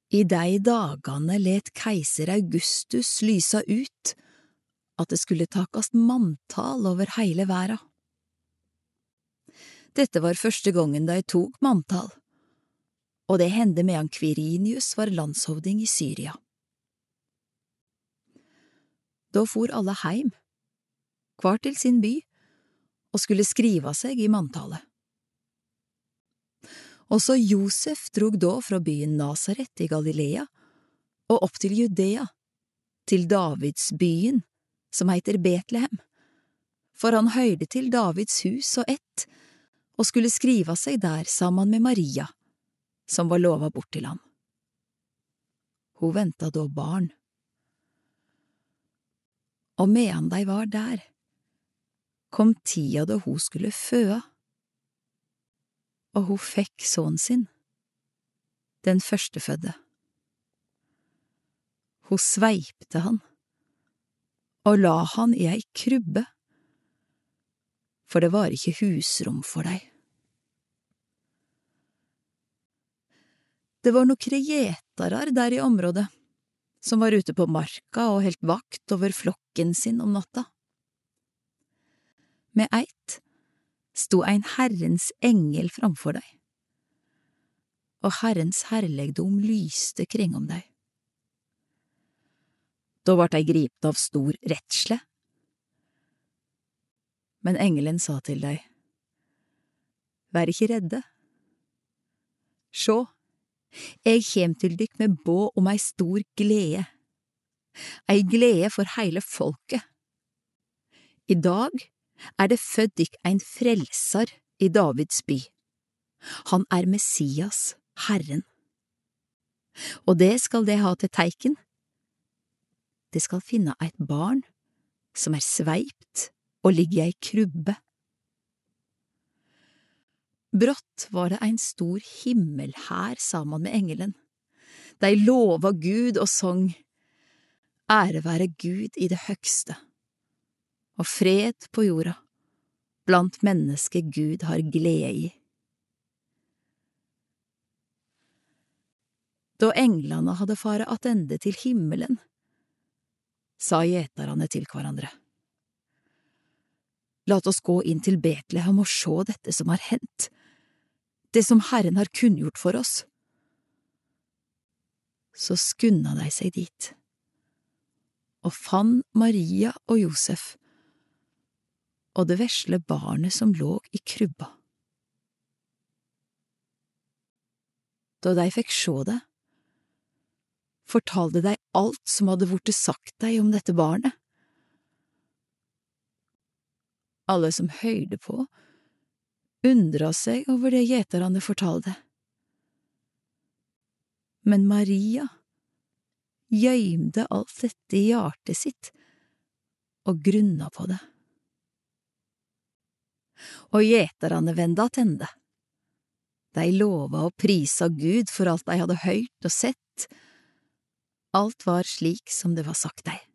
I dei dagane let keiser Augustus lysa ut at det skulle takast manntal over heile verda. Dette var første gongen de tok manntal, og det hendte medan Quirinius var landshovding i Syria. Da for alle heim, hver til sin by, og skulle skriva seg i manntalet. Også Josef drog da fra byen Nasaret i Galilea og opp til Judea, til Davids byen, som heter Betlehem, for han høyde til Davids hus og ett, og skulle skriva seg der sammen med Maria, som var lova bort til ham. Hun venta da barn. Og medan de var der, kom tida da hun skulle føde, og hun fikk sønnen sin, den førstefødde. Hun sveipte han, og la han i ei krybbe, for det var ikke husrom for dei. Det var nokre gjetarar der i området, som var ute på marka og helt vakt over flokken sin om natta. Med eit sto ein Herrens engel framfor deg, og Herrens herlegdom lyste kring om deg. Da vart dei gripne av stor redsle. Men engelen sa til deg, vær ikke redde. Sjå, jeg kjem til dykk med båd om ei stor glede, ei glede for heile folket. I dag det født dykk ein frelsar i Davids by. Han Messias, Herren. Og det skal de ha til teiken. De skal finne eit barn som sveipt og ligger i ei krybbe. Brått var det ein stor himmelhær sammen med engelen. De lova Gud og sang, ære være Gud i det høgste, og fred på jorda, blant mennesker Gud har glede i. Da englene hadde fare attende til himmelen, sa gjetarane til hverandre, lat oss gå inn til Betlehem og sjå dette som har hendt, det som Herren har kunngjort for oss. Så skunda de seg dit, og fann Maria og Josef, og det vesle barnet som låg i krybba. Da de fikk sjå det, fortalte de alt som hadde vorte sagt deg om dette barnet. Alle som høyde på, undra seg over det gjetarane fortalte. Men Maria gjøymde alt dette i hjertet sitt og grunna på det. Og gjetarane venda attende. De lova og prisa Gud for alt de hadde høyrt og sett. Alt var slik som det var sagt deg.